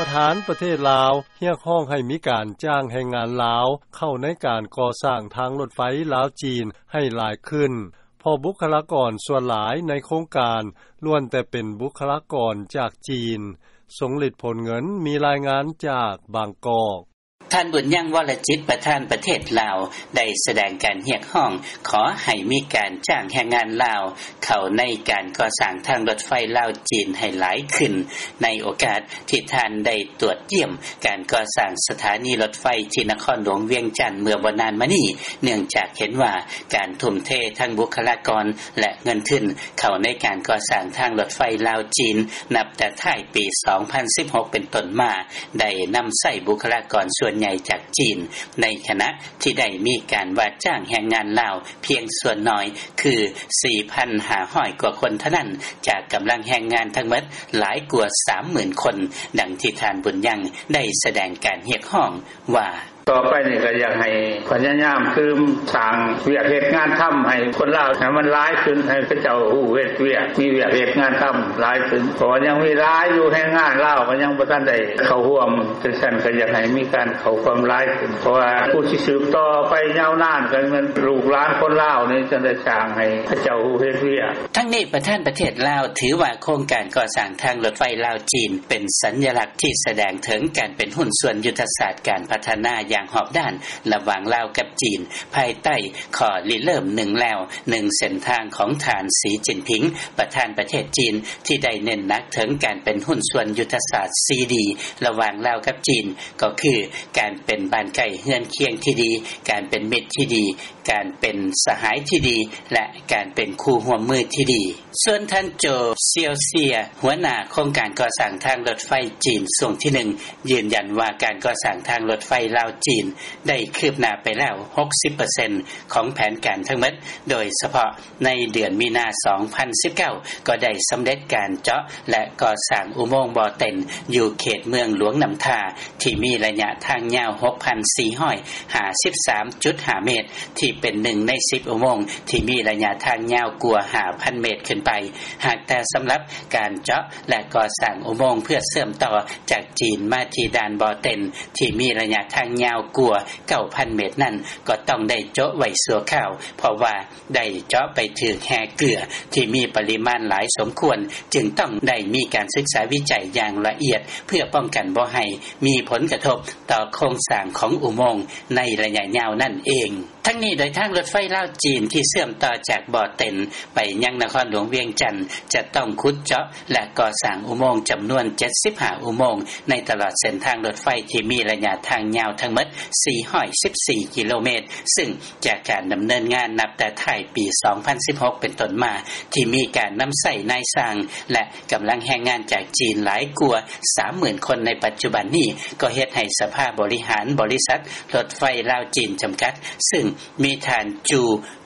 ປະທານປະເທດລາວ ຮຽກຮ້ອງໃຫ້ມີການຈ້າງແຮງງານລາວ ເຂົ້າໃນການກໍ່ສ້າງທາງລົດໄຟລາວ-ຈີນ ໃຫ້ຫຼາຍຂຶ້ນ ເພາະບຸກຄະລາກອນສ່ວນຫຼາຍໃນໂຄງການ ລ້ວນແຕ່ເປັນບຸກຄະລາກອນຈາກຈີນ. ຊົງລິດ ໂພນເງິນ ມີລາຍງານຈາກບາງກອກ. ທ່ານ ບຸນຍັງ ວໍລະຈິດ ປະທານປະເທດລາວ ໄດ້ສະແດງການຮຽກຮ້ອງ ຂໍໃຫ້ມີການຈ້າງແຮງງານລາວ ເຂົ້າໃນການກໍ່ສ້າງທາງລົດໄຟລາວ-ຈີນ ໃຫ້ຫຼາຍຂຶ້ນ ໃນໂອກາດທີ່ທ່ານໄດ້ຕວດຢ້ຽມການກໍ່ສ້າງສະຖານີລົດໄຟ ທີ່ນະຄອນຫຼວງວຽງຈັນ ເມື່ອບໍ່ນານມານີ້ ເນື່ອງຈາກເຫັນວ່າ ການທຸ່ມເທທັງບຸກຄະລາກອນ ແລະ ເງິນທຶນ ເຂົ້າໃນການກໍ່ສ້າງທາງລົດໄຟລາວ-ຈີນ ນັບແຕ່ທ້າຍປີສອງພັນສິບຫົກເປັນຕົ້ນມາ ໄດ້ນຳໃຊ້ບຸກຄະລາກອນສ່ວນໃຫຍ່ຈາກຈີນ ໃນຂະນະທີ່ໄດ້ມີການວ່າຈ້າງແຮງງານລາວພຽງສ່ວນໜ້ອຍ ຄື ສີ່ພັນຫ້າຮ້ອຍກວ່າຄົນເທົ່ານັ້ນ ຈາກກຳລັງແຮງງານທັງໝົດຫຼາຍກວ່າສາມໝື່ນຄົນ, ດັ່ງທີ່ທ່ານ ບຸນຍັງ ໄດ້ສະແດງການຮຽກຮ້ອງວ່າ: ຕໍ່ໄປນີ້ກໍຢາກໃຫ້ພະຍາຍາມຕື່ມສ້າງວຽກເຮັດງານທຳໃຫ້ຄົນລາວໃຫ້ມັນຫຼາຍຂຶ້ນ, ໃຫ້ເຂົາເຈົ້າຮູ້ເຮັດວຽກ, ມີວຽກເຮັດງານທຳຫຼາຍຂຶ້ນ, ເພາະວ່າຍັງມີຫຼາຍຢູ່ ແຮງງານລາວກໍຍັງບໍ່ທັນໄດ້ເຂົ້າຮ່ວມ. ຈັ່ງຊັ້ນກໍຢາກໃຫ້ມີການເຂົ້າຮ່ວມຫຼາຍຂຶ້ນ, ເພາະວ່າຜູ້ທີ່ສືບຕໍ່ໄປຍາວນານກໍແມ່ນລູກຫຼານຄົນລາວນີ້ ຈັ່ງໄດ້ສ້າງໃຫ້ເຂົາເຈົ້າຮູ້ເຮັດວຽກ. ທັງນີ້ ປະທານປະເທດລາວ ຖືວ່າໂຄງການກໍ່ສ້າງທາງລົດໄຟລາວ-ຈີນ ເປັນສັນຍະລັກທີ່ສະແດງເຖິງການເປັນຫຸ້ນສ່ວນຍຸດທະສາດການພັດທະນາຢ່າງຮອບດ້ານ ລະຫວ່າງລາວກັບຈີນ ພາຍໃຕ້ຂໍ້ລິເລີ່ມໜຶ່ງແລວໜຶ່ງເສັ້ນທາງຂອງທ່ານ ສີຈິນຜິງ ປະທານປະເທດຈີນ ທີ່ໄດ້ເນັ້ນໜັກເຖິງການເປັນຫຸ້ນສ່ວນຍຸດທະສາດສີ່ດີ ລະຫວ່າງລາວກັບຈີນ ກໍຄື ການເປັນບ້ານໃກ້ເຮືອນຄຽງທີ່ດີ, ການເປັນມິດທີ່ດີ, ການເປັນສະຫາຍທີ່ດີ ແລະ ການເປັນຄູ່ຮ່ວມມືທີ່ດີ. ສ່ວນທ່ານ ໂຈ ຊຽວເຊຍ ຫົວໜ້າໂຄງການກໍ່ສ້າງທາງລົດໄຟຈີນຊ່ວງທີໜຶ່ງ ຢືນຢັນວ່າການກໍ່ສ້າງທາງລົດໄຟລາວ-ຈີນ ໄດ້ຄືບໜ້າໄປແລ້ວຫົກສິບເປີເຊັນຂອງແຜນການທັງໝົດ, ໂດຍສະເພາະໃນເດືອນມີນາ ສອງພັນສິບເກົ້າ ກໍໄດ້ສຳເລັດການເຈາະ ແລະ ກໍ່ສ້າງອຸໂມງບໍ່ເຕັນ ຢູ່ເຂດເມືອງຫຼວງນ້ຳທາ ທີ່ມີໄລຍະທາງຍາວຫົກພັນສີ່ຮ້ອຍຫ້າສິບສາມຈຸດຫ້າເມດ ທີ່ເປັນໜຶ່ງໃນສິບອຸໂມງທີ່ມີໄລຍະທາງຍາວກວ່າຫ້າພັນເມດຂຶ້ນໄປ. ຫາກແຕ່ສຳລັບການເຈາະ ແລະ ກໍ່ສ້າງອຸໂມງເພື່ອເຊື່ອມຕໍ່ຈາກຈີນມາທີ່ດ່ານບໍ່ເຕັນ ທີ່ມີໄລຍະທາງຍາວກວ່າເກົ້າພັນເມດນັ້ນ ກໍຕ້ອງໄດ້ໂຈະໄວ້ຊົ່ວຄາວ ເພາະວ່າ ໄດ້ເຈາະໄປຖືກແຮ່ເກືອທີ່ມີປະລິມານຫຼາຍສົມຄວນ, ຈຶ່ງຕ້ອງໄດ້ມີການສຶກສາວິໄຈຢ່າງລະອຽດ ເພື່ອປ້ອງກັນບໍ່ໃຫ້ມີຜົນກະທົບຕໍ່ໂຄງສ້າງຂອງອຸໂມງໃນໄລຍະຍາວນັ້ນເອງ. ທັງນີ້ ໂດຍທາງລົດໄຟລາວ-ຈີນ ທີ່ເຊື່ອມຕໍ່ຈາກບໍ່ເຕັນໄປຍັງນະຄອນຫຼວງວຽງຈັນ ຈະຕ້ອງຂຸດເຈາະ ແລະ ກໍ່ສ້າງອຸໂມງຈຳນວນເຈັດສິບຫ້າອຸໂມງ ໃນຕະຫຼອດເສັ້ນທາງລົດໄຟທີ່ມີໄລຍະທາງຍາວທັງໝົດສີ່ຮ້ອຍສິບສີ່ກິໂລເມດ, ຊຶ່ງ ຈາກການດຳເນີນງານນັບແຕ່ທ້າຍປີສອງພັນສິບຫົກເປັນຕົ້ນມາ ທີ່ມີການນຳໃຊ້ນາຍຊ່າງ ແລະ ກຳລັງແຮງງານຈາກຈີນຫຼາຍກວ່າສາມໝື່ນຄົນໃນປັດຈຸບັນນີ້ ກໍເຮັດໃຫ້ສະພາບໍລິຫານບໍລິສັດລົດໄຟລາວ-ຈີນຈຳກັດ ຊຶ່ງມີທ່ານ ຈູ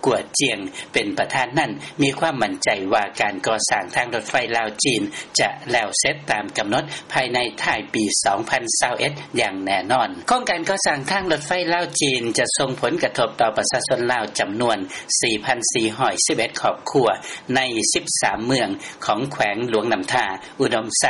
ກວດຈຽງ ເປັນປະທານນັ້ນ ມີຄວາມໝັ້ນໃຈວ່າການກໍ່ສ້າງທາງລົດໄຟລາວ-ຈີນ ຈະແລ້ວເສັດຕາມກຳນົດພາຍໃນທ້າຍປີສອງພັນຊາວເອັດຢ່າງແນ່ນອນ. ໂຄງການກໍ່ສ້າງທາງລົດໄຟລາວ-ຈີນ ຈະສົ່ງຜົນກະທົບຕໍ່ປະຊາຊົນລາວຈຳນວນສີ່ພັນສີ່ຮ້ອຍສິບເອັດຄອບຄົວ ໃນສິບສາມເມືອງຂອງແຂວງຫຼວງນ້ຳທາ, ອຸດົມໄຊ,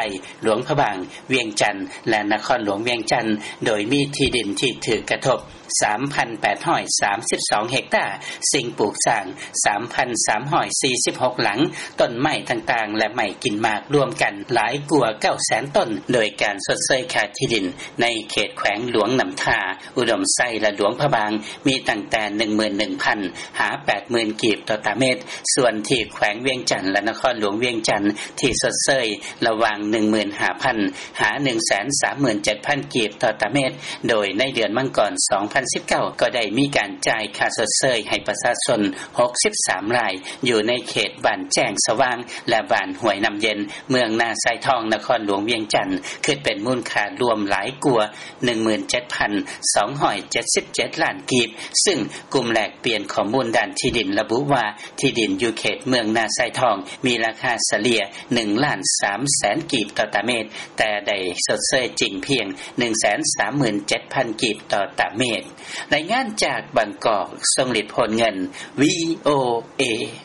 ຫຼວງພະບາງ, ວຽງຈັນ ແລະ ນະຄອນຫຼວງວຽງຈັນ, ໂດຍມີທີ່ດິນທີ່ຖືກກະທົບ ສາມພັນແປດຮ້ອຍສາມສິບສອງເຮັກຕາ, ສິ່ງປູກສ້າງ ສາມພັນສາມຮ້ອຍສີ່ສິບຫົກຫຼັງ, ຕົ້ນໄມ້ຕ່າງໆ ແລະ ໄມ້ກິນໝາກລວມກັນຫຼາຍກວ່າເກົ້າແສນຕົ້ນ, ໂດຍການຊົດເຊີຍຄ່າທີ່ດິນໃນເຂດແຂວງຫຼວງນ້ຳທາ, ອຸດົມໄຊ ແລະ ຫຼວງພະບາງ ມີຕັ້ງແຕ່ໜຶ່ງໝື່ນໜຶ່ງພັນຫາແປດໝື່ນກີບຕໍ່ຕາເມດ, ສ່ວນທີ່ແຂວງວຽງຈັນ ແລະ ນະຄອນຫຼວງວຽງຈັນ ທີ່ຊົດເຊີຍລະຫວ່າງໜຶ່ງໝື່ນຫ້າພັນຫາໜຶ່ງແສນສາມໝື່ນເຈັດພັນກີບຕໍ່ຕາເມດ, ໂດຍໃນເດືອນມັງກອນສອງພັນສິບເກົ້າ ກໍໄດ້ມີການຈ່າຍຄ່າຊົດເຊີຍໃຫ້ປະຊາຊົນຫົກສິບສາມລາຍ ຢູ່ໃນເຂດບ້ານແຈ້ງສະຫວ່າງ ແລະ ບ້ານຫ້ວຍນ້ຳເຢັນ, ເມືອງນາຊາຍທອງ, ນະຄອນຫຼວງວຽງຈັນ, ຄິດເປັນມູນຄ່າລວມຫຼາຍກວ່າ ໜຶ່ງໝື່ນເຈັດພັນສອງຮ້ອຍເຈັດສິບເຈັດລ້ານກີບ, ຊຶ່ງກຸ່ມແລກປ່ຽນຂໍ້ມູນດ້ານທີ່ດິນລະບຸວ່າ ທີ່ດິນຢູ່ເຂດເມືອງນາຊາຍທອງມີລາຄາສະເລ່ຍໜຶ່ງລ້ານສາມແສນກີບຕໍ່ຕາເມດ, ແຕ່ໄດ້ຊົດເຊີຍຈິງພຽງໜຶ່ງແສນສາມໝື່ນເຈັດພັນກີບຕໍ່ຕາເມດ. ລາຍງານຈາກບາງກອກ, ຊົງລິດ ໂພນເງິນ, ວີໂອເອ.